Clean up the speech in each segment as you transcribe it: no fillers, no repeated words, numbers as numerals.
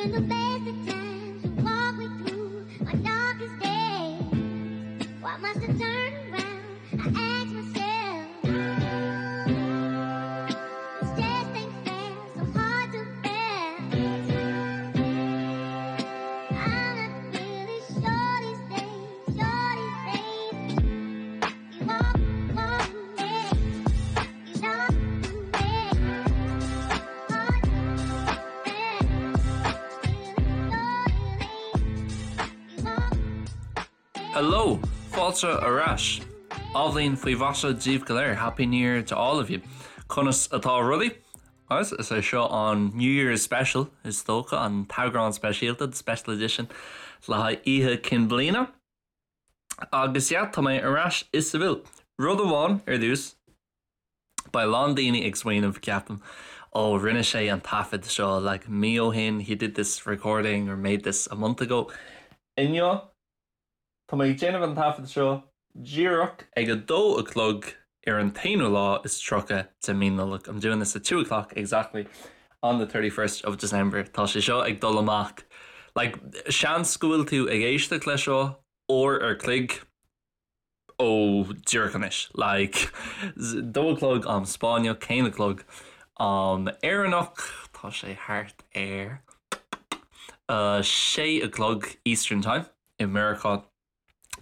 Even the best of times you walk me through my darkest days. Why must I turn around? I ask myself. This just ain't fair, so hard to bear. I'm not really sure these days, sure these days. You walk, walk me, you know me. Hard to bear. You walk. Hello! Fáilte ar ais! Athbhliain faoi mhaise daoibh go léir, Happy New Year to all of you! Conas atá rudaí? Agus is é seo an New Year's Special, is dócha, an t-eagrán speisialta, the special edition, le haghaidh Oíche Chinn Bliana. Agus yeah, tá mé ar ais i Seville. Rud amháin ar dtús, beidh a lán daoine ag smaoineamh, ceapaim, ó rinne sé an taifead seo like mí ó shin, he did this recording or made this a month ago. Inniu, tá mé ag déanamh an taifead seo díreach ag a dó a chlog ar an t-aonú lá is 30 de mí Nollag. I'm doing this at 2 o'clock exactly on the 31st of December. Tá sé seo ag dul amach. Like, seans go bhfuil tú ag éisteacht leis seo uair ar chloig ó díreach anois. Like, dó a chlog am Spáinneach, haon a chlog am Éireannach, tá sé thart ar a sé a chlog Eastern Time i Meiriceá.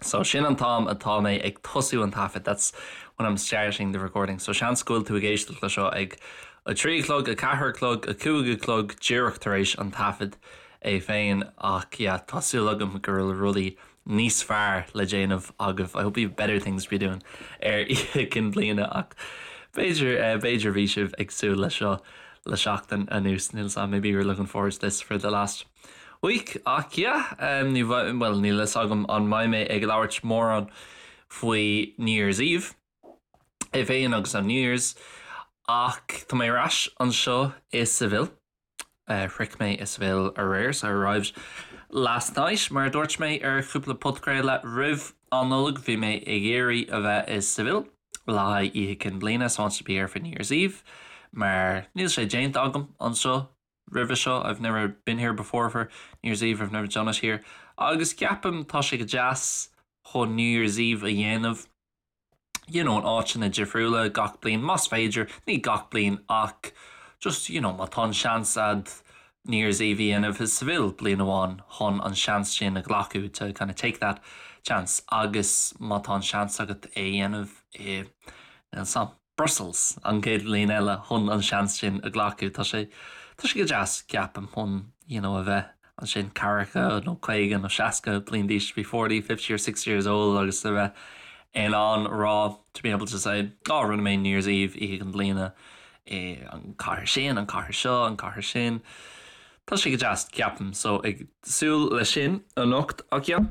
So sin an t-am atá mé ag tosú an taifead, that's when I'm starting the recording. So seans go bhfuil tú ag éisteacht le seo ag a trí a chlog, a ceathair a chlog, a cúig a chlog díreach tar éis an taifead é féin ach yeah, tá súil agam go bhfuil rudaí níos fearr le déanamh agaibh. I hope you've better things to be doing ar Oíche Chinn Bliana ach b'fhéidir, eh, b'fhéidir bhí sibh ag súil le seo le seachtain anuas, níl 's a'm, maybe you're looking forward to this for the last week ach yeah, um, ní bhuel, níl 'fhios agam an mbeidh mé ag labhairt mórán faoi New Year's Eve é féin agus an New Year's ach tá mé ar ais anseo i Seville. Uh, shroich mé i Seville aréir, so I arrived last night mar a dúirt mé ar chúpla podchraoladh roimh an Nollaig bhí mé ag iarraidh a bheith i Seville le haghaidh Oíche Chinn Bliana so I wanted to be here for New Year's Eve mar níl sé déanta agam anseo roimhe seo I've never been here before for New Year's Eve I've never done it here agus ceapaim tá sé go deas chun New Year's Eve a dhéanamh you know in áiteanna difriúla gach bliain más féidir ní gach bliain ach just you know má tá an seans a'd New Year's Eve a dhéanamh i Seville bliain amháin chun an seans sin a ghlacadh to kind of take that chance agus má tá an seans agat é a dhéanamh i níl 's a'm Brussels an chéad bhliain eile chun an seans sin a ghlacadh. Tá sé tá sé go deas ceapaim chun you know a bheith ansin ceathracha nó 50 nó 60 bliain d'aois to be 40, 50 or 60 years old agus a bheith in ann rá to be able to say oh rinne mé New Year's Eve Oíche Chinn Bliana i an cathair sin, an cathair seo, an cathair sin. Tá sé go deas ceapaim so ag súil leis sin anocht ach yeah.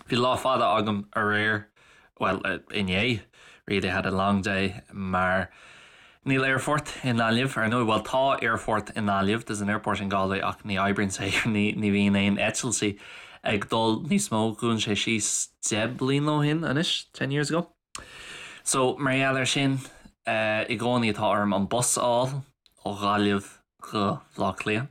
Bhí lá fada agam aréir, bhuel, inné, really had a long day mar níl aerfort i nGaillimh, ar ndóigh, bhuel tá aerfort i nGaillimh, there's an airport in Galway ach ní oibríonn sé, ní ní bhíonn aon eitiltí ag dul níos mó, dhún sé síos 10 bliain ó shin anois, 10 years ago. So, mar gheall air sin, i gcónaí tá orm an bus a fháil ó Ghaillimh go Bhaile Átha Cliath.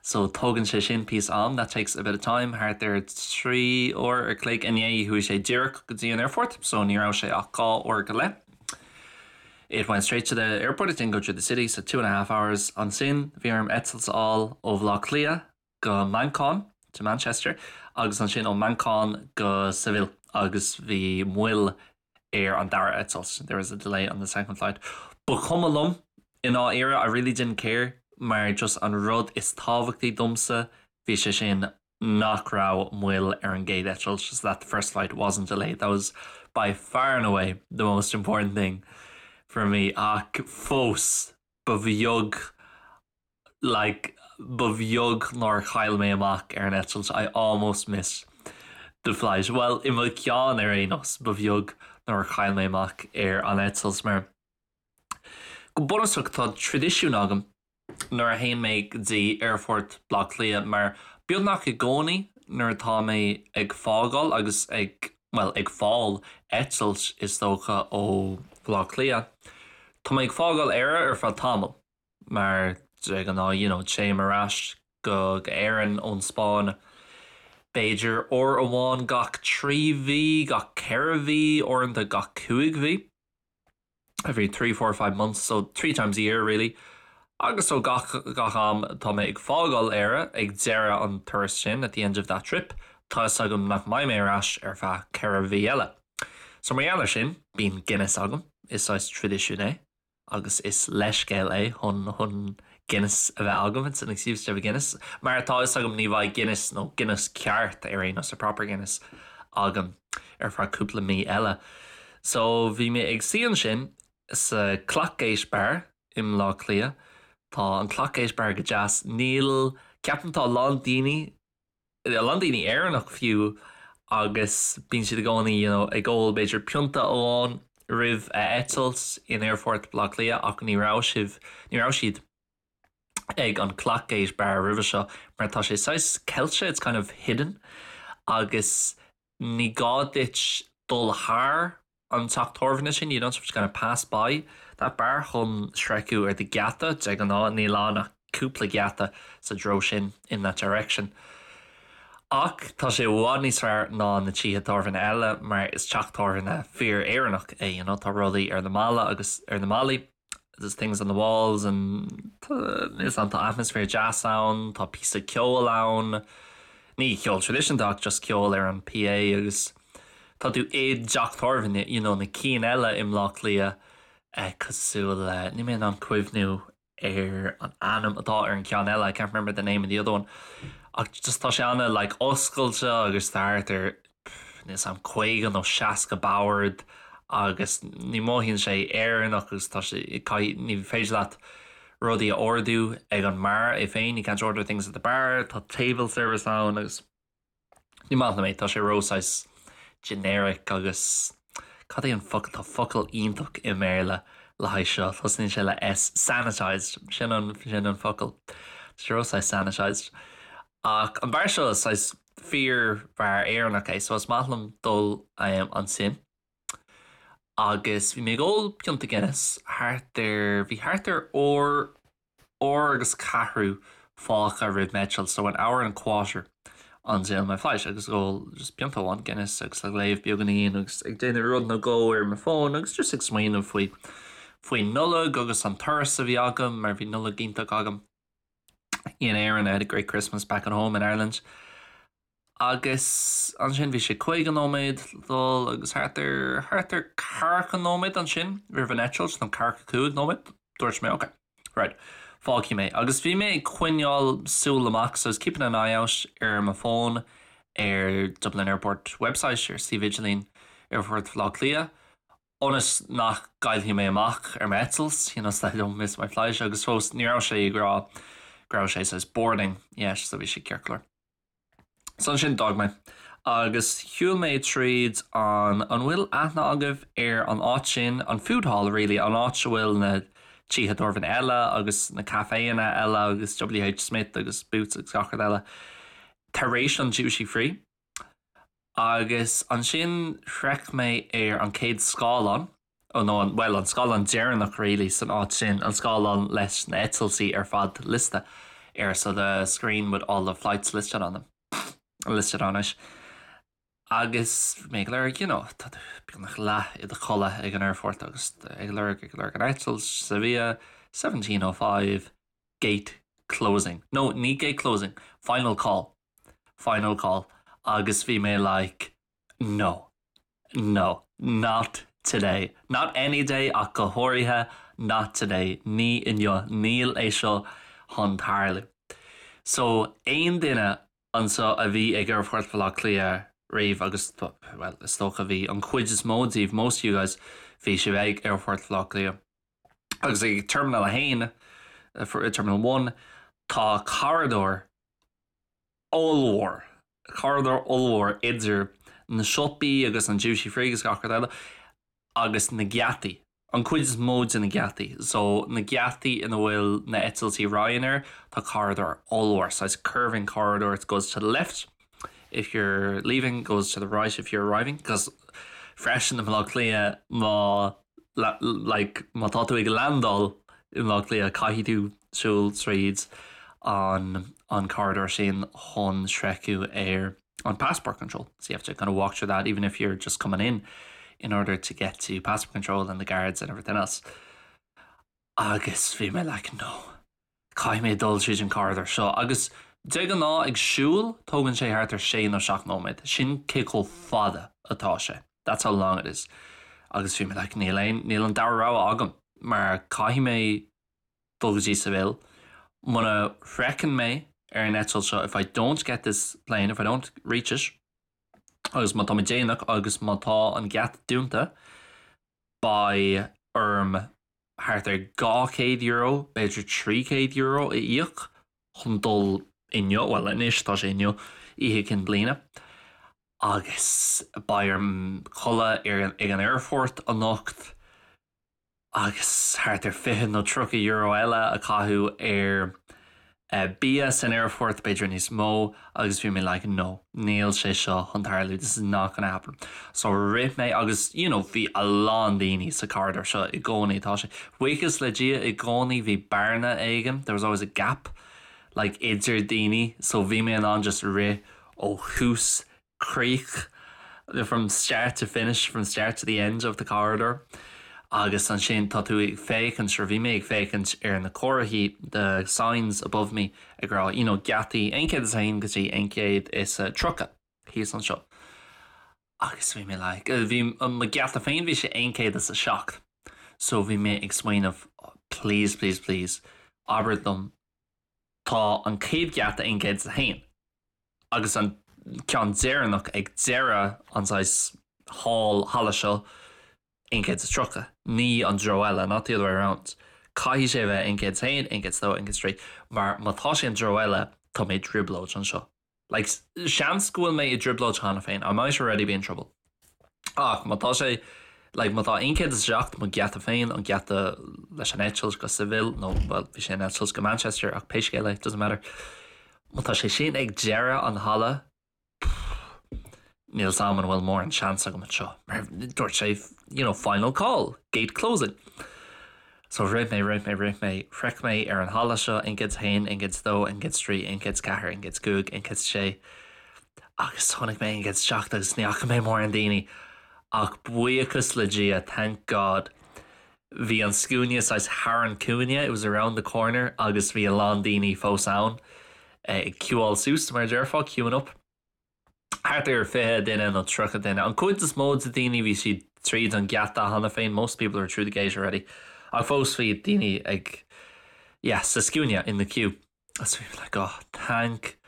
So, tógann sé sin píosa am, that takes a bit of time, thart ar 3 uair ar chloig. Inné chuaigh sé díreach go dtí an aerfort, so ní raibh sé ach dhá uair go leith. It went straight to the airport, it didn't go through the city, so two and a half hours. Ansin, bhí orm eitilt a fháil ó Bhaile Átha Cliath go Manchain, to Manchester, agus ansin ó Manchain go Seville agus bhí moill ar an dara eitilt, there was a delay on the second flight. Ba chuma liom i ndáiríre, I really didn't care mar just an rud is tábhachtaí domsa bhí sé sin nach raibh moill ar an gcéad eitilt, just that the first flight wasn't delayed. That was by far and away the most important thing for me ach fós ba bheag like ba bheag nár chaill mé amach ar an eitilt I almost missed the flight. Well i mo cheann ar aon nós ba bheag nár chaill mé amach ar an eitilt mar go bunúsach tá traidisiún agam nuair a théann mé go dtí aerfort Bhaile Átha Cliath mar beagnach i gcónaí nuair atá mé ag fágáil agus ag bhuel ag fáil eitilt is dócha ó Bhaile Átha Cliath tá mé ag fágáil Éire ar feadh tamaill. mar de ghnáth you know téim ar ais. go Éirinn ón Spáinn b'fhéidir uair amháin gach 3 mhí, gach 4 mhí, uaireanta gach 5 mhí. Every 3, 4, 5 months, so 3 times a year really. Agus so gach gach am tá mé ag fágáil Éire ag deireadh an turas sin, at the end of that trip, tá fhios agam nach mbeidh mé ar ais ar feadh 4 mhí eile. So mar gheall ar sin, bíonn Guinness agam, is saghas traidisiún é. agus is leithscéal é chun chun Guinness a bheith agam, it's an excuse to have a Guinness, mar tá fhios agam ní bheidh Guinness nó Guinness ceart ar aon nós, a proper Guinness, agam ar feadh cúpla mí eile. So bhí mé ag suí ansin sa Clackgate Bar i mBleá Cliath. Tá an Clackgate Bar go deas. Níl, ceapaim tá a lán daoine a lán daoine Éireannach fiú agus bíonn siad i gcónaí you know ag ól b'fhéidir pionta amháin roimh a eitilt in Aerfort Bhaile Átha Cliath ach ní raibh sibh, ní raibh siad ag an Clackgate Bar roimhe seo mar tá sé saghas ceilte, it's kind of hidden agus ní gá duit dul thar an teach tábhairne sin, you don't have to kind of pass by that bar chun sroicheadh ar do gheata, de ghnáth níl ann ach cúpla geata sa treo sin, in that direction. Ach tá sé i bhfad níos fearr ná na tithe tábhairne eile mar is teach tábhairne fíor-Éireannach é, you know, tá rudaí ar na balla agus ar na ballaí. There's things on the walls and is an tá atmaisféar deas ann, tá píosa ceoil ann, ní ceol traidisiúnta ach just ceol ar an PA agus tá tú i dteach tábhairne, you know, na cinn eile i mBleá Cliath eh, cosúil le, níl mé in ann cuimhniú ar an ainm atá ar an ceann eile, I can't remember the name of the other one, ach just tá sé ana like oscailte agus tá thart ar níl 's a'm 50 nó 60 bord agus ní mothaíonn sé Éireannach agus tá sé caithfidh ní féidir leat rudaí a ordú ag an mbeár é féin, you can't order things at the bar, tá table service ann agus ní maith liom é, tá sé ró saghas generic agus cad é an focal, tá focal iontach i mBéarla le haghaidh seo, tosnaíonn sé le S, sanitized, sin an sin an focal, tá sé ró saghas sanitized. Ach an beár seo is saghas fíor-bheár Éireannach é so is maith liom dul ansin. Agus bhí mé ag ól pionta Guinness thart ar, bhí thart ar uair, uair agus ceathrú fágtha roimh m'eitilt, so an hour and a quarter until my flight agus ag ól just pionta amháin Guinness agus ag léamh beagáinín agus ag déanamh rud nó dhó ar mo fón agus just ag smaoineamh faoi, faoin Nollaig agus an turas a bhí agam mar bhí Nollaig iontach agam. In Éirinn, I had a great Christmas back at home in Ireland. Agus ansin bhí sé 50 nóiméad le dul agus thart ar, thart ar ceathracha nóiméad ansin roimh an eitilt, nó ceathracha cúig nóiméad, dúirt mé ok, right, fágfaidh mé. Agus bhí mé ag coinneáil súil amach, so I was keeping an eye out ar mo fón ar Dublin Airport website, ar suíomh idirlín Aerfort Bhaile Átha Cliath, ionas nach gcaillfidh mé amach ar m'eitilt, you know, so that I don't miss my flight, agus fós ní raibh sé ag rá go raibh sé saghas boarding yet, so bhí sé ceart go leor. So ansin d'fhág mé agus shiúil mé tríd an, an bhfuil aithne agaibh ar an áit sin, an food hall really, an áit a bhfuil na tithe tábhairne eile agus na caiféanna eile agus WH Smith agus Boots agus gach rud eile tar éis an duty free? Agus ansin shroich mé ar an chéad scáileán, nó an, bhuel, an scáileán deireanach really san áit sin, an scáileán leis na eitiltí ar fad liosta air, so the screen with all the flights listed on them, listed on it. Agus bhí mé ag lorg, you know, tá tú beagnach leath i do chodladh ag an aerfort agus ag lorg, ag lorg an eitilt, Sevilla, 17:05, gate closing. No, ní gate closing, final call. Final call agus bhí mé like no, no, not today, not any day ach go háirithe not today, ní inniu, níl é seo chun tarlú. So aon duine anseo a bhí ag Aerfort Bhaile Átha Cliath riamh agus well is dócha bhí an chuid is mó díobh, most of you guys, bhí sibh ag Aerfort Bhaile Átha Cliath agus ag Terminal 1, Terminal 1, tá corridor ollmhór, corridor ollmhór idir na siopaí agus an duty free agus gach rud eile agus na geataí, an chuid is mó de na geataí. So na geataí ina bhfuil na eitiltí Ryanair, tá corridor ollmhór, saghas curving corridor, it goes to the left if you're leaving, goes to the right if you're arriving, 'cause freisin i mBaile Átha Cliath má like má tá tú ag landáil i mBaile Átha Cliath caithfidh tú siúl tríd. an an corridor sin chun sroicheadh ar an passport control. So you have to kind of walk through that even if you're just coming in in order to get to passport control and the guards and everything else. Agus bhí mé like no. Caithfidh mé dul tríd an corridor seo agus de ghnáth ag siúl tógann sé thart ar sé nó seacht nóiméad. Sin cé chomh fada atá sé. That's how long it is. Agus bhí mé like níl aon níl an dara rogha agam mar caithfidh mé dul go dtí Seville. Muna shroicheann mé ar an eitilt seo if I don't get this plane, if I don't reach it, agus má tá mé déanach agus má tá an geata dúnta, beidh orm thart ar €200, b'fhéidir €300 a íoc chun dul inniu, bhuel anois tá sé inniu, Oíche Chinn Bliana, agus beidh orm codladh ag an aerfort anocht. agus thart ar €20 nó €30 eile a chaitheamh ar bia san aerfort, b'fhéidir níos mó, agus bhí mé like no, níl sé seo chun tarlú, this is not gonna happen. So rith mé agus you know bhí a lán daoine sa corridor seo i gcónaí, tá sé, buíochas le Dia i gcónaí bhí bearna éigin, there was always a gap like idir daoine so bhí mé in ann just rith ó thús críoch, from start to finish, from start to the end of the corridor agus ansin tá tú ag féachaint, or bhí mé ag féachaint ar na comharthaí, the signs above me ag rá you know geataí 101 go dtí 130 thíos anseo agus bhí mé like, bhí mo gheata féin bhí sé 107 so bhí mé ag smaoineamh please, please, please abair liom tá an chéad gheata 101. agus an ceann deireanach ag deireadh an saghas hall, halla seo, 130, ní an treo eile, not the other way around. Caithfidh sé a bheith 101, 102, 103, mar má tá sé an treo eile, tá mé i dtrioblóid anseo. Like, seans go bhfuil mé i dtrioblóid cheana féin, I might already be in trouble. Ach má tá sé, like, má tá 107, mo gheata féin, an geata leis an eitilt go Seville, nó, bhuel, bhí sé an eitilt go Manchester, ach pé scéal é, doesn't matter. Má tá sé sin ag deireadh an halla, pfff, níl 's a'm an bhfuil mórán seans agam anseo, mar dúirt sé, you know, final call, gate closing. So rith mé, rith mé, rith mé, shroich mé ar an halla seo, 101, 102, 103, 104, 105, 106, agus chonaic mé 107 agus ní fhaca mé mórán daoine, ach buíochas le Dia, thank God, bhí an scuaine saghas thar an cúinne, it was around the corner, agus bhí a lán daoine fós ann ag ciúáil suas, mar a déarfá, queuing up. Thart ar 20 duine nó 30 duine. An chuid is mó de daoine bhí siad tríd an geata cheana féin, most people are through the gate already, ach fós bhí daoine ag, yeah, sa scuaine, in the queue. So bhí mé like, oh, thank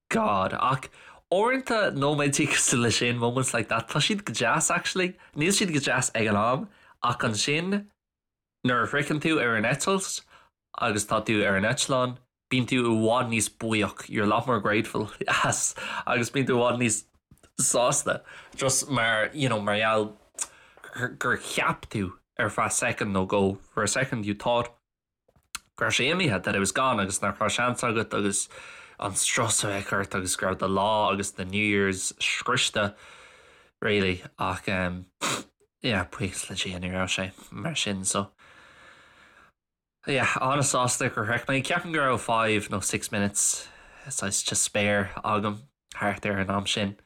God. Ach uaireanta nóiméidí cosúil le sin, moments like that, tá siad go deas actually. Níl siad go deas ag an am, ach ansin nuair a shroicheann tú ar an eitilt agus tá tú ar an eitleán, bíonn tú i bhfad níos buíoch, you're a lot more grateful as agus bíonn tú i bhfad níos sásta just mar, you know, mar gheall gur cheap tú ar feadh soicind nó dhó, for a second you thought go raibh sé imithe, that it was gone agus nach raibh seans agat agus an strus a bheith ort agus go raibh do lá agus do New Year's scriosta really ach um, yeah, buíochas le Dia ní raibh sé mar sin so yeah, an-sásta gur shroich mé. Ceapaim go raibh 5 nó 6 minutes saghas to spare agam thart ar an am sin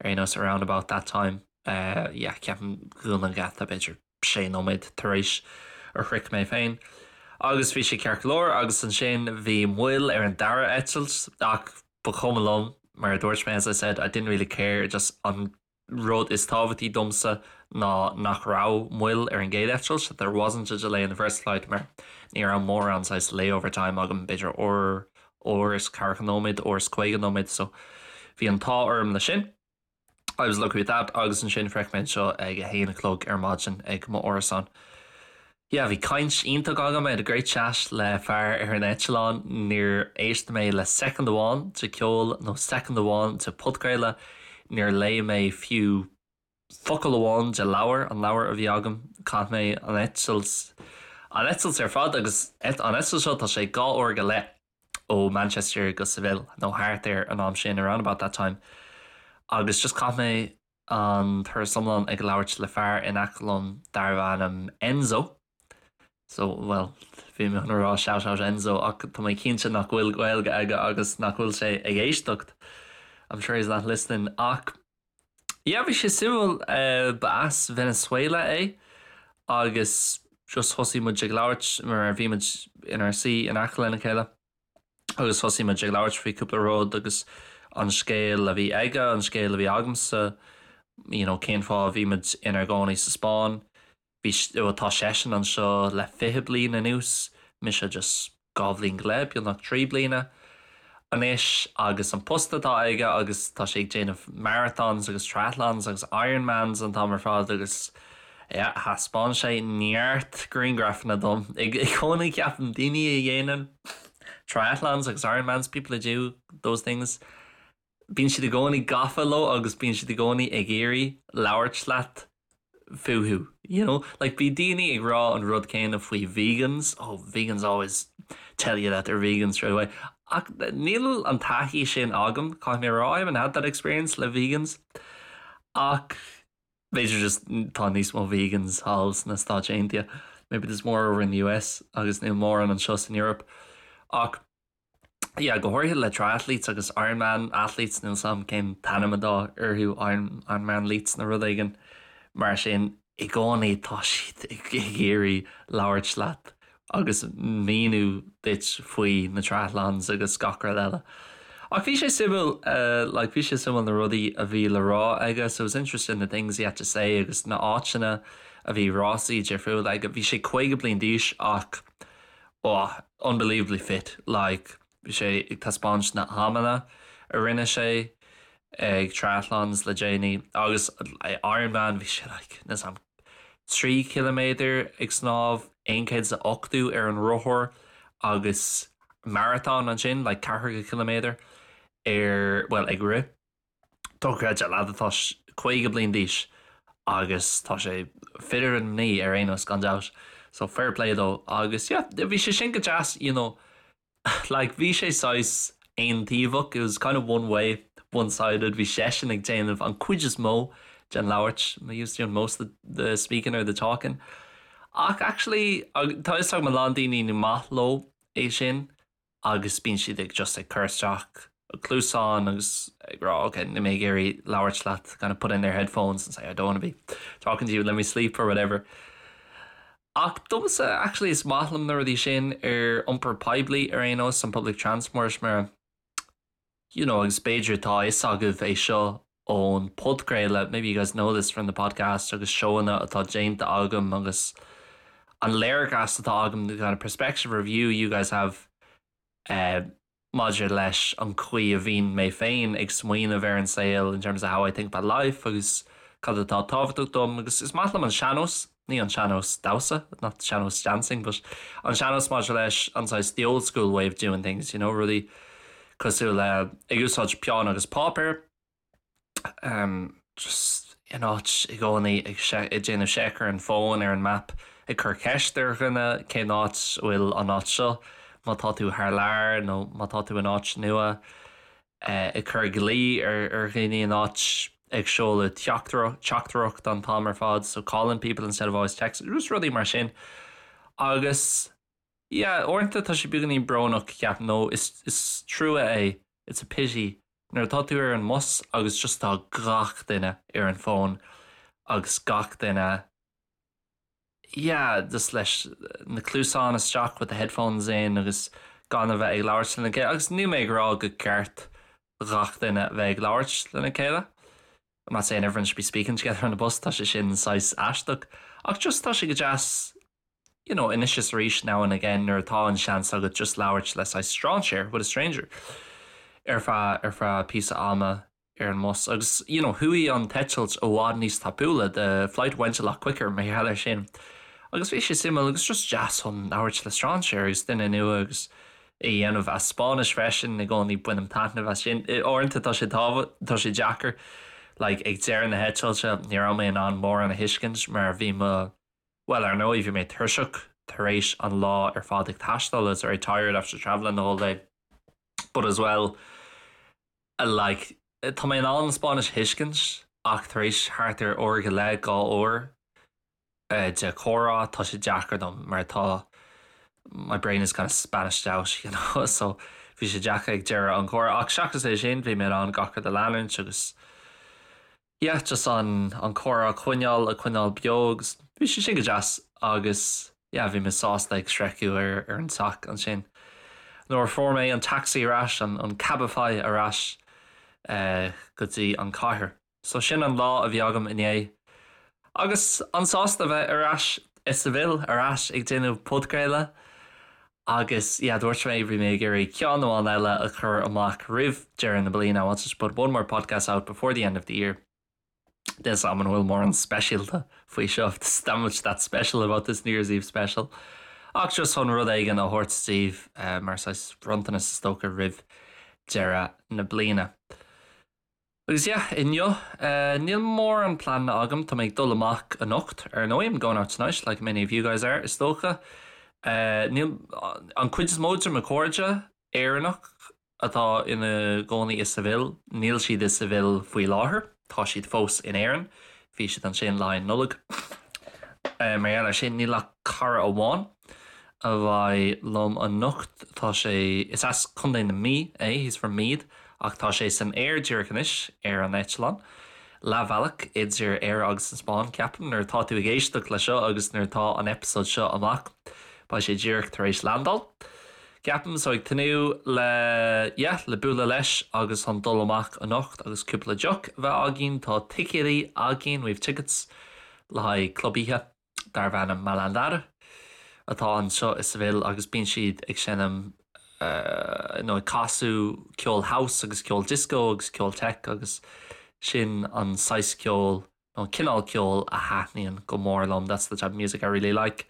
ar aon nós around about that time. Uh, yeah, ceapaim dhún an geata b'fhéidir sé nóiméad tar éis a shroich mé féin. Agus bhí sé ceart go leor agus ansin bhí moill ar an dara eitilt ach ba chuma liom mar a dúirt mé as I said I didn't really care just an rud is tábhachtaí domsa ná nach raibh moill ar an gcéad eitilt that there wasn't a delay in the first flight mar ní raibh mórán saghas layover time agam b'fhéidir uair uair is ceathracha nóiméad uair is 50 nóiméad so bhí an t-ádh orm le sin. I was lucky with that agus ansin shroich mé anseo ag a haon a chlog ar maidin ag mo árasán. Yeah, bhí caint iontach agam, I had a great chat le fear ar an eitleán, níor éist mé le soicind amháin de ceol nó soicind amháin de podchraoladh, níor léigh mé fiú focal amháin de leabhar, an leabhar a bhí agam, chaith mé an eitilt, an eitilt ar fad agus an eitilt seo tá sé dhá uair go leith. ó Manchester go Seville nó thart ar an am sin, around about that time, agus just chaith mé an turas iomlán ag labhairt le fear in aice liom darbh ainm Enzo. So, bhuel, bhí mé chun a rá shout out Enzo ach tá mé cinnte nach bhfuil Gaeilge aige agus nach bhfuil sé ag éisteacht. I'm sure he's not listening ach yeah bhí sé suimiúil ba as Venezuela é agus just thosaigh muid ag labhairt mar bhí muid inár suí in aice lena chéile agus thosaigh muid ag labhairt faoi cúpla rud agus an scéal a bhí aige, an scéal a bhí agamsa, you know cén fáth a bhí muid inár gcónaí sa Spáinn. Bhí, bhuel tá seisean anseo le 20 bliain anuas, mise just 2 bhliain go leith, beagnach 3 bliana anois agus an post atá aige agus tá sé ag déanamh marathons agus triathlons agus Ironmans an t-am ar fad agus yeah thaispeáin sé neart grianghrafanna dom. I gcónaí ceapaim daoine a dhéanann triathlons agus Ironmans, people who do those things, bíonn siad i gcónaí gafa leo agus bíonn siad i gcónaí ag iarraidh labhairt leat fúthu. You know? Like bíonn daoine ag rá an rud céanna faoi vegans, oh vegans always tell you that they're vegan straight away. Ach níl an taithí sin agam, caithfidh mé a rá, I haven't had that experience le vegans. Ach b'fhéidir just tá níos mó vegans thall sna Stáit Aontaithe. Maybe there's more over in the US agus níl mórán anseo san Europe. Ach yeah, go háirithe le triathletes agus Ironman athletes, níl 's a'm cén t-ainm atá orthu, Iron, Ironmanletes nó rud éigin mar sin, i gcónaí tá siad ag iarraidh labhairt leat agus míniú duit faoi na triathlons agus gach rud eile. Ach bhí sé suimiúil, like bhí sé suimiúil na rudaí a bhí le rá aige, so it was interesting the things he had to say agus na áiteanna a bhí rásaí difriúla aige. Bhí sé 50 bliain d'aois ach oh unbelievably fit like bhí sé ag taispeáint na hamanna a rinne sé ag triathlons le déanaí agus Ironman bhí sé like níl 's a'm 3 chiliméadar ag snámh, 180 ar an rothar agus marathon ansin like 40 ciliméadar ar bhuel ag rith. Dochreidte, leaid atá 50 bliain d'aois agus tá sé fitter than me ar aon nós gan dabht. So fair play dó agus yeah bhí sé sin go deas you know like bhí sé saghas aontaobhach, it was kind of one way, one sided, bhí seisean ag déanamh an cuid is mó den labhairt, he was doing most of the speaking or the talking. Ach actually tá fhios agam a lán daoine ní maith leo é sin agus bíonn siad ag just ag cur isteach cluasáin agus ag rá ok níl mé ag iarraidh labhairt leat kind of put in their headphones and say I don't want to be talking to you let me sleep or whatever. Ach domsa actually is maith liom na rudaí sin ar iompar poiblí ar aon nós an public transport mar you know agus b'fhéidir tá fhios agaibh é seo ón podchraoladh maybe you guys know this from the podcast agus seóanna atá déanta agam agus an léargas atá agam the kind of perspective review you guys have uh, maidir leis an chaoi a bhíonn mé féin ag smaoineamh ar an saol in terms of how I think about life agus cad atá tábhachtach dom agus is maith liom an sean-nós, ní an sean-nós damhsa, not sean-nós dancing, but an sean-nós maidir leis an saghas the old school way of doing things, you know, rudaí cosúil le ag úsáid peann agus páipéar, um, just in áit i gcónaí ag ag déanamh seic ar an bhfón ar an map ag cur ceist ar dhuine cén áit a bhfuil an áit seo má tá tú thar lear nó má tá tú in áit nua eh, ag cur glao ar ar dhaoine in áit ag seoladh teachtaireacht an t-am ar fad so calling people instead of always text just rudaí mar sin agus yeah uaireanta tá sé beagáinín brónach ceapaim nó is is trua é it's a pity nuair atá tú ar an mbus agus just tá gach duine ar an bhfón agus gach duine yeah just leis na cluasáin isteach with the headphones in agus gan a bheith ag labhairt lena chéile agus níl mé ag rá gur ceart gach duine a bheith ag labhairt lena chéile. I'm not saying everyone should be speaking together on the bus, tá sé sin saghas aisteach ach just tá sé go deas you know, anois is arís now and again nuair atá an seans agat just labhairt le saghas strainséir with a stranger ar feadh ar feadh píosa ama ar an mbus agus you know, chuaigh an t-eitilt i bhfad níos tapúla the flight went a lot quicker mar gheall air sin agus bhí sé suimiúil agus just deas chun labhairt le strainséir agus duine nua agus é a dhéanamh as Spáinnis freisin i gcónaí bainim taitneamh as sin. Uaireanta tá sé tá sé deacair like ag deireadh na heitilte ní raibh mé in ann mórán a thuiscint mar bhí mo Bhuel, ar ndóigh, bhí mé tuirseach tar éis an lá ar fad ag taisteal, I was very tired after travelling the whole day. But as well, like, tá mé in ann an Spáinnis a thuiscint ach tar éis thart ar uair go leith, 2 uair. de chomhrá, tá sé deacair dom mar tá my brain is kind of Spanished out, you know, so bhí sé deacair ag deireadh an chomhrá. Ach seachas é sin, bhí mé in ann gach rud a leanúint agus yeah, just an an comhrá a choinneáil, a choinneáil beo agus bhí sé sin go deas agus yeah, bhí mé sásta ag sroicheadh ar ar an teach ansin. Nuair a fuair mé an taxi ar ais, an an Cabify ar ais eh, go dtí an cathair. So sin an lá a bhí agam inné. Agus an-sásta bheith ar ais i Seville, ar ais ag déanamh podchraoladh. Agus yeah, dúirt mé, bhí mé ag iarraidh ceann amháin eile a chur amach roimh deireadh na bliana, I wanted to put one more podcast out before the end of the year. Níl 's a'm an bhfuil mórán speisialta faoi seo, there's not much that special about this New Year's Eve special. Ach just chun rud éigin a thabhairt daoibh mar saghas bronntanas is dócha roimh deireadh na bliana. Agus yeah, inniu, níl mórán pleananna agam, tá mé ag dul amach anocht, ar ndóigh, I'm going out tonight, like many of you guys are, is dócha. Níl, an cuid is mó de mo chairde Éireannach atá ina gcónaí i Seville, níl siad i Seville faoi láthair, tá siad fós in Éirinn, bhí siad ansin le haghaidh Nollag. Mar gheall air sin, níl ach cara amháin a bheidh liom anocht. Tá sé, is as Contae na Mí é, he's from Meath, ach tá sé san aer díreach anois, ar an eitleán. Leathbhealach idir Éire agus an Spáinn, ceapaim, nuair atá tú ag éisteacht le seo agus nuair atá an eipeasóid seo amach, beidh sé díreach tar éis landáil, ceapaim. So ag tnúth le, yeah, le bualadh leis agus chun dul amach anocht agus cúpla deoch a bheith againn. Tá ticéidí againn, we have tickets, le haghaidh club oíche. darb ainm Malandar atá anseo i Seville agus bíonn siad ag seinm nó ag casadh ceol house agus ceol disco agus ceol tech agus sin an saghas ceoil nó an cineál ceoil a thaitníonn go mór liom, that's the type of music I really like.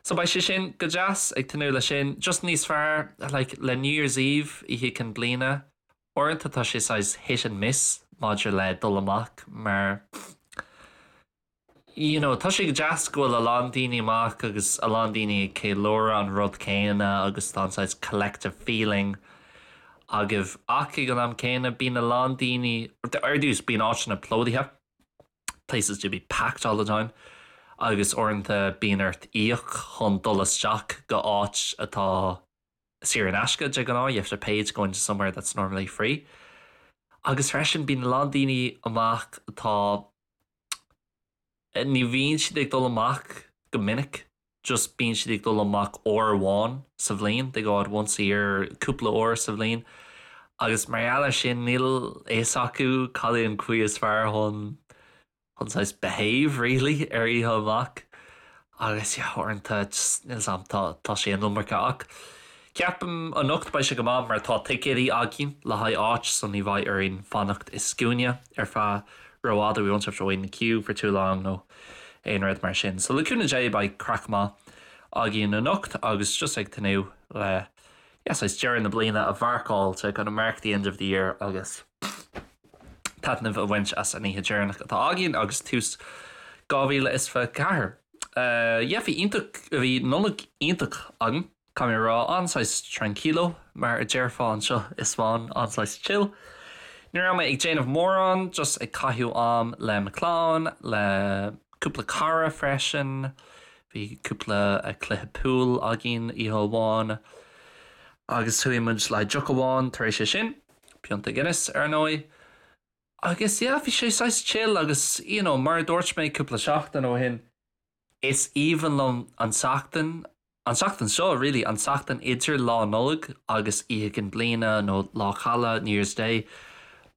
So beidh sé sin go deas, ag tnúth leis sin. Just níos fearr like le New Year's Eve, Oíche Chinn Bliana, uaireanta tá sé saghas hit and miss maidir le dul amach mar you know, tá sé go deas go bhfuil a lán daoine amach agus a lán daoine ag ceiliúradh an rud céanna agus tá an saghas collective feeling agaibh ach ag an am céanna bíonn a lán daoine, ar dtús bíonn áiteanna plódaithe, places do be packed all the time, agus uaireanta bíonn ort íoc chun dul isteach go áit atá saor in aisce de ghnáth, you have to pay to go into somewhere that's normally free. Agus freisin bíonn a lán daoine amach atá Ní bhíonn siad ag dul amach go minic, just bíonn siad ag dul amach uair amháin sa bhliain, they go out once a year, cúpla uair sa bhliain, agus mar gheall air sin níl a fhios acu cad é an chaoi is fearr chun chun saghas behave really ar oíche amach agus yeah uaireanta just níl 's a'm tá tá sé an iomarca ach ceapaim anocht beidh sé go maith mar tá ticéidí againn le haghaidh áit so ní bheidh orainn fanacht i scuaine ar feadh rófhada, we won't have to wait in the queue for too long nó aon rud mar sin. So le cúnamh Dé beidh craic maith againn anocht agus just ag tnúth le yeah saghas deireadh na bliana a mharcáil to kind of mark the end of the year agus taitneamh a bhaint as an oíche deireanach atá againn agus tús 2024. Uh, yeah, bhí iontach, bhí Nollaig iontach agam. Caithfidh mé a rá, an-saghas tranquilo, mar a déarfá anseo i Spáinn, an-saghas chill. Ní raibh mé ag déanamh mórán, just ag caitheamh am le mo chlann, le cúpla cara freisin. Bhí cúpla cluiche pool againn oíche amháin agus chuaigh muid le deoch amháin tar éis é sin, pionta Guinness ar ndóigh. Agus yeah, bhí sé saghas chill agus you know, mar a dúirt mé cúpla seachtain ó shin, is aoibhinn liom an tseachtain An tseachtain seo, really, an tseachtain idir Lá Nollag agus Oíche Chinn Bliana nó Lá Caille, New Year's Day,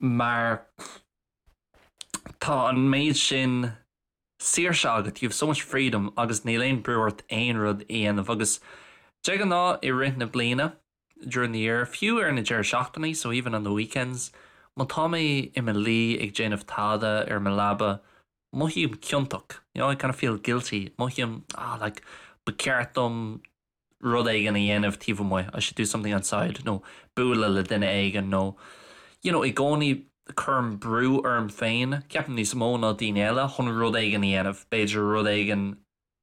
mar tá an méid sin saoirse agat, you have so much freedom agus níl aon brú ort aon rud a dhéanamh agus de ghnáth i rith na bliana, during the year, fiú ar na deireadh seachtainí, so even on the weekends, má tá mé i mo luí ag déanamh tada ar mo leaba, Mothaím ciontach, you know, I kind of feel guilty, mothaím, ah, like, ba cheart dom rud éigin a dhéanamh taobh amuigh, I should do something outside, nó bualadh le duine éigin, nó, you know, i gcónaí cuirim brú orm féin, ceapaim níos mó ná daoine eile, chun rud éigin a dhéanamh, b'fhéidir rud éigin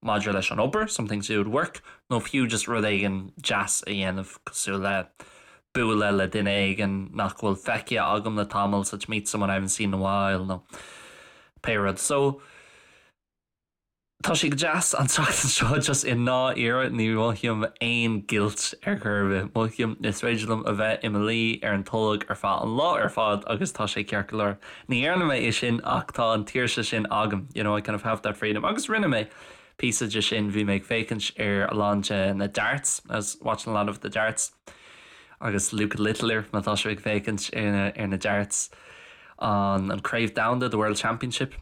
maidir leis an obair, something to do with work, nó fiú just rud éigin deas a dhéanamh cosúil le bualadh le duine éigin nach bhfuil feicthe agam le tamall, so to meet someone I haven't seen in a while nó pé rud. So, Tá sé go deas an tseachtain seo just i ndáiríre ní mhothaím aon guilt ar chor ar bith. Mothaím is féidir liom a bheith i mo luí ar an tolg ar feadh an lá ar fad agus tá sé ceart go leor. Ní dhearna mé é sin ach tá an tsaoirse sin agam, you know, I kind of have that freedom. Agus rinne mé píosa de sin, bhí mé ag féachaint ar a lán de na darts, I was watching a lot of the darts agus Luke Littler má tá sibh ag féachaint ar na darts an an Craobh Domhanda, the World Championship.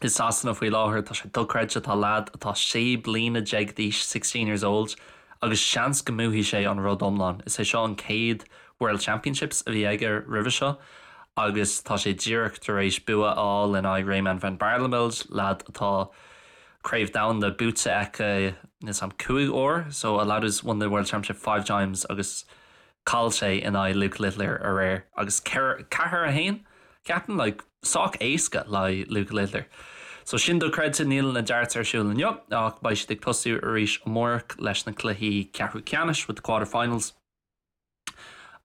I Sasana faoi láthair tá sé dochreidte, tá leaid atá 16 bliana d'aois, 16 years old, agus seans go mbuafaidh sé an rud iomlán. Is é seo an chéad World Championships a bhí aige roimhe seo agus tá sé díreach tar éis bua a fháil in aghaidh Raymond van Barneveld, leaid atá Craobh Domhanda buaite aige níl a fhios agam cúig uair, so a lad who's won the World Championship five times agus Chaill sé in aghaidh Luke Littler aréir agus 4, 1, ceapaim, like, sách éasca le haghaidh Luke Littler. So sin dochreidte, níl na darts ar siúl inniu ach beidh siad ag tosú arís amárach leis na cluichí ceathrú ceannais with the quarter-finals.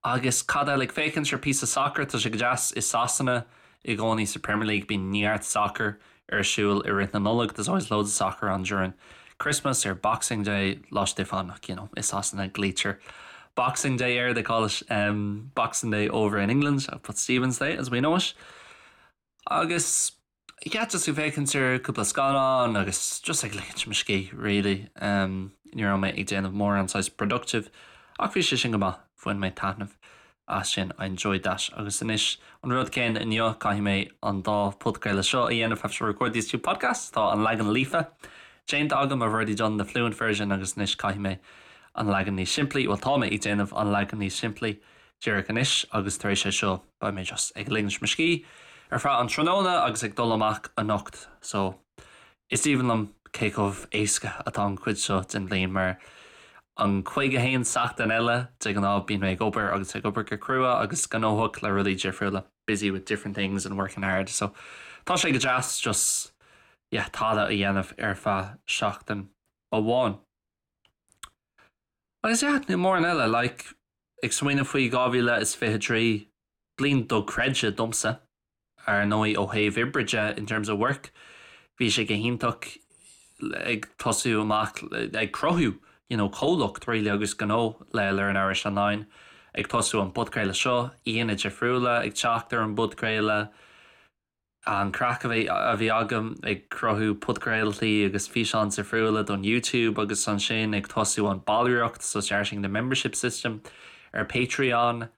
Agus cad eile ag féachaint ar píosa sacair, tá sé go deas i Sasana i gcónaí sa Premier League bíonn neart sacair ar siúl i rith na Nollag, there's always loads of soccer on during Christmas or Boxing Day, Lá Stiofáin ach you know, i Sasana glaoitear Boxing Day air, they call it um, Boxing Day over in England, but Stephen's Day as we know it. Agus yeah, just ag féachaint ar cúpla scannán agus just ag ligint mo scíth really. Um, ní raibh mé ag déanamh mórán saghas productive ach bhí sé sin go maith, bhain mé taitneamh as sin, I enjoyed that. Agus anois, an rud céanna inniu, caithfidh mé an dá podchraoladh seo a dhéanamh, have to record these two podcasts, tá an leagan líofa déanta agam, I've already done the fluent version, agus anois caithfidh mé an leagan níos simplí, bhuel tá mé ag déanamh an leagan níos simplí díreach anois agus tar éis é seo beidh mé just ag ligint mo scíth ar feadh an tráthnóna agus ag dul amach anocht so Is aoibhinn liom cé chomh éasca atá an chuid seo den bhliain mar an 51 seachtain eile de ghnáth bíonn mé ag obair agus ag obair go crua agus gnóthach le rudaí difriúla, busy with different things and working hard so tá sé go deas just yeah tada a dhéanamh ar feadh seachtain amháin. Agus yeah níl mórán eile like ag smaoineamh faoi 2023 bliain dochreidte domsa. Ar ndóigh, ó thaobh oibre de, in terms of work, bhí sé go hiontach ag tosú amach ag cruthú you know comhlacht really agus gnó le Learn Irish Online, ag tosú an podchraoladh seo, aíonna difriúla ag teacht ar an bpodchraoladh, an craic a bhí a bhí agam ag cruthú podchraoltaí agus físeáin difriúla don YouTube agus ansin ag tosú an ballraíocht, so starting the membership system ar Patreon.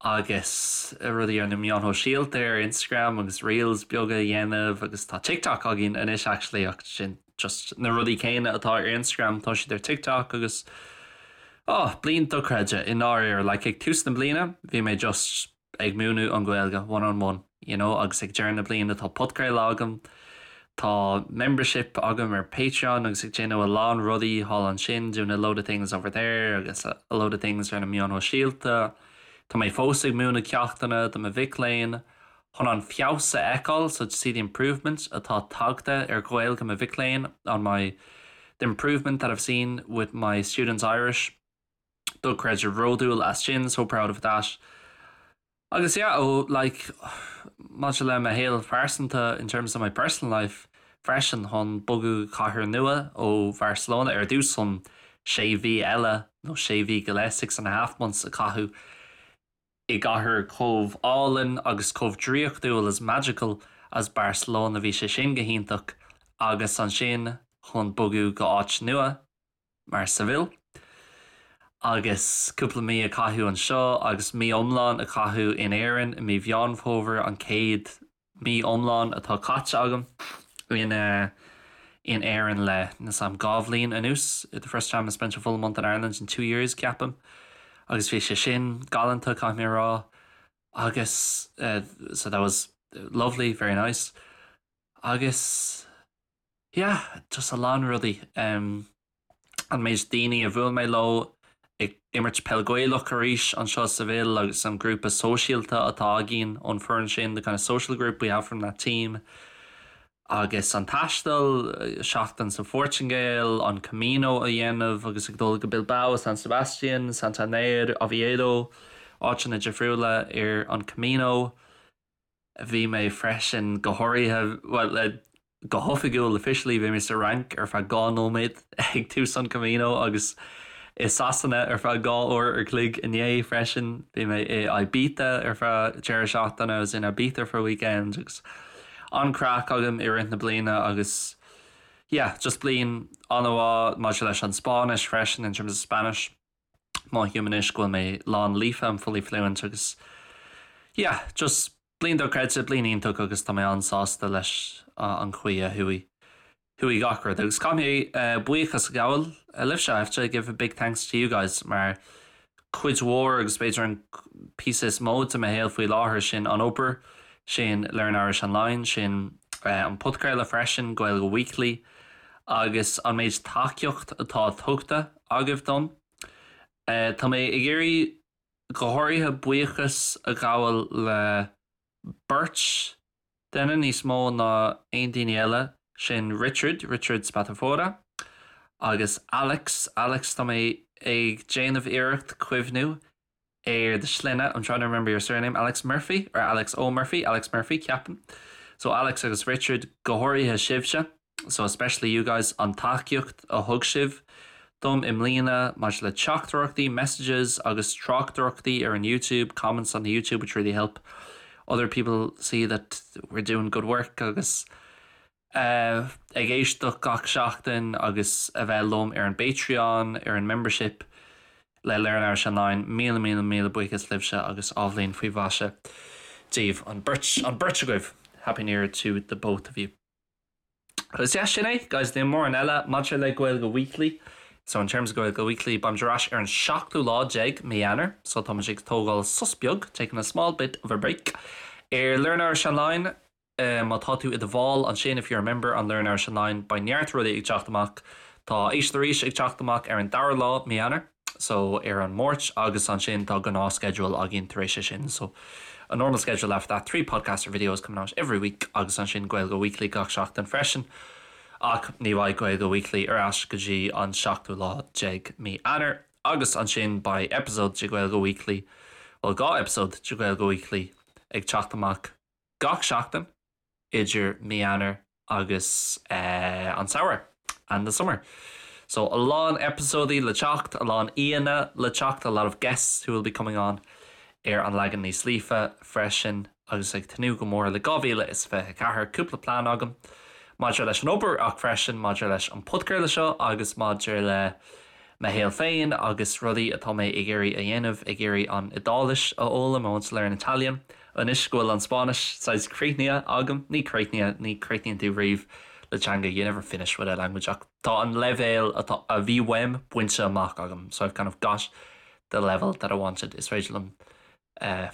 agus rudaí ar na meáin shóisialta ar Instagram agus reels beaga a dhéanamh agus tá TikTok againn anois actually ach sin just na rudaí céanna atá ar Instagram tá siad ar TikTok agus oh bliain dochreidte i ndáiríre like ag tús na bliana bhí mé just ag múineadh an Ghaeilge one on one you know agus ag deireadh na bliana tá podchraoladh agam Tá membership agam ar Patreon agus ag déanamh a lán rudaí thall ansin, doing a load of things over there agus a load of things ar na meáin shóisialta. Tá mé fós ag múineadh ceachtanna do mo mhic léinn chun an feabhas a fheiceáil, so to see the improvement atá tagtha ar Ghaeilge mo mhic léinn, on my the improvement that I've seen with my students' Irish. Dochreidte bródúil as sin, so proud of that. Agus yeah, ó like maidir le mo shaol pearsanta in terms of my personal life freisin chun bogadh go cathair nua ó Bharcelona ar dtús chun sé mhí eile nó sé mhí go leith, six and a half months a chaitheamh i gcathair chomh álainn agus chomh draíochtúil as magical as Barcelona bhí sé sin go hiontach agus ansin chun bogadh go áit nua mar Seville agus cúpla mí a chaitheamh anseo agus mí iomlán a chaitheamh in Éirinn i mí Mheán Fómhair an chéad mí iomlán atá caite agam in in Éirinn le níl a fhios agam dhá bhliain anuas the first time I spent a full month in Ireland in two years ceapaim agus bhí sé sin galánta caithfidh mé a rá agus so that was lovely very nice agus Yeah, just a lán rudaí. An méid daoine a bhuail mé leo ag imirt peil Gaelach arís anseo i Seville agus an grúpa sóisialta atá againn ón foireann sin, the kind of social group we have from that team. Agus an taisteal, seachtain sa Phortaingéil, an Camino a dhéanamh agus ag dul go Bilbao, San Sebastian, Santander, Oviedo, áiteanna difriúla ar an Camino. Bhí mé freisin go háirithe, bhuel, le. go hoifigiúil, officially, bhí mé sa Fhrainc ar feadh 2 nóiméad ag tús an Camino agus i Sasana ar feadh 2 uair ar chloig inné freisin. Bhí mé i Ibiza ar feadh deireadh seachtaine, I was in Ibiza for a weekend agus an-craic agam i rith na bliana agus yeah, just bliain an-mhaith maidir leis an Spáinnis freisin, in terms of Spanish. Mothaím anois go bhfuil mé lán líofa, I'm fully fluent agus yeah, just bliain dochreidte, bliain iontach agus tá mé an-sásta leis an chaoi a chuaigh chuaigh gach rud. Agus caithfidh mé buíochas a ghabháil libhse, I have to give a big thanks to you guys mar cuid mhór agus b'fhéidir an píosa is mó de mo shaol faoi láthair sin an obair, sin Learn Irish Online, sin an podchraoladh freisin, Gaeilge Weekly agus an méid tacaíocht atá tugtha agaibh dom. Tá mé ag iarraidh go háirithe buíochas a ghabháil le beirt duine níos mó ná aon daoine eile, sin Richard, Richard Spatafora, agus Alex, Alex, tá mé ag déanamh iarracht cuimhniú ar do shloinne, I'm trying to remember your surname, Alex Murphy or Alex O'Murphy, Alex Murphy, ceapaim. So Alex agus Richard, go háirithe sibhse. So especially you guys, an tacaíocht a thug sibh dom i mbliana maidir le teachtaireachtaí, messages agus tráchtaireachtaí ar an YouTube, comments on the YouTube which really help other people see that we're doing good work agus ag éisteacht gach seachtain agus a bheith liom ar an bPatreon, ar an membership le Learn Irish Online. Míle míle míle buíochas libhse agus athbhliain faoi mhaise daoibh, an beirt, an beirt agaibh! Happy New Year to the both of you. Agus yeah, sin é, guys, níl mórán eile maidir le Gaeilge Weekly. So in terms of Gaeilge Weekly, beimid ar ais ar an seachtú lá déag mí Eanáir, so táimid ag tógáil sos beag, taking a small bit of a break, ar Learn Irish Online. Má tá tú i do bhall ansin, if you're a member on Learn Irish Online, beidh neart rudaí ag teacht amach. Tá Éist Arís ag teacht amach ar an dara lá mí Eanáir. so ar an Máirt agus ansin tá gnáthsceideal againn tar éis sin so a normal schedule after that, 3 podcasts or videos coming out every week agus ansin Gaeilge Weekly gach seachtain freisin ach ní bheidh Gaeilge Weekly ar ais go dtí an seachtú lá déag mí Eanáir agus ansin beidh episode de Gaeilge Weekly, bhuel 2 episode de Gaeilge Weekly ag teacht amach gach seachtain. idir mí Eanáir agus an samhradh, and the summer. So a lán eipeasóidí le teacht, a lán aíonna le teacht, a lot of guests who will be coming on ar an leagan níos líofa freisin agus ag tnúth go mór le 2024, cúpla plean agam maidir leis an obair ach freisin maidir leis an podchraoladh seo agus maidir le mo shaol féin agus rudaí atá mé ag iarraidh a dhéanamh, ag iarraidh an Iodáilis a fhoghlaim, I want to learn Italian. Anois go bhfuil an Spáinnis saghas críochnaithe agam, ní críochnaithe, ní chríochnaíonn tú riamh le teanga, you never finish with a language, ach tá an leibhéal atá, a bhí uaim bainte amach agam, so I've kind of got the level that I wanted. Is féidir liom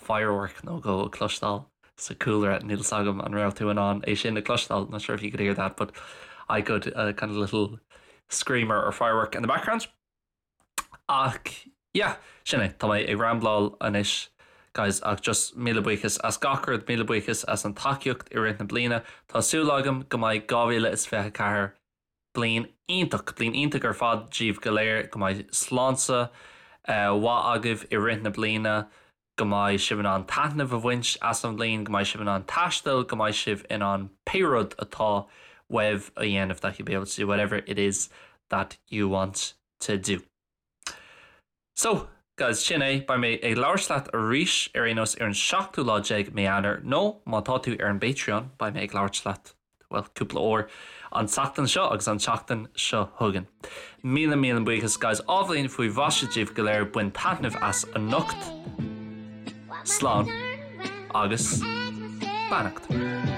firework nó dhó a chloisteáil sa chúlra, níl 's agam an raibh tú in ann é sin a chloisteáil, not sure if you could hear that, but I could, a kind of little screamer or firework in the background. Ach yeah, sin é, tá mé ag rambláil anois guys ach just míle buíochas as gach rud, míle buíochas as an tacaíocht i rith na bliana. Tá súil agam go mbeidh 2024 bliain iontach, bliain iontach ar fad daoibh go léir, go mbeidh sláinte mhaith agaibh i rith na bliana, go mbeidh sibh in ann taitneamh a bhaint as an bhliain, go mbeidh sibh in ann taisteal, go mbeidh sibh in ann pé rud atá uaibh a dhéanamh that you'll be able to do whatever it is that you want to do. So, guys, sin é, beidh mé ag labhairt leat arís ar aon nós ar an seachtú lá déag mí Eanáir nó má tá tú ar an bPatreon beidh mé ag labhairt leat bhuel, cúpla uair an tseachtain seo agus an tseachtain seo chugainn. Míle míle buíochas guys, athbhliain faoi mhaise daoibh go léir, bain taitneamh as anocht. Slán agus beannacht.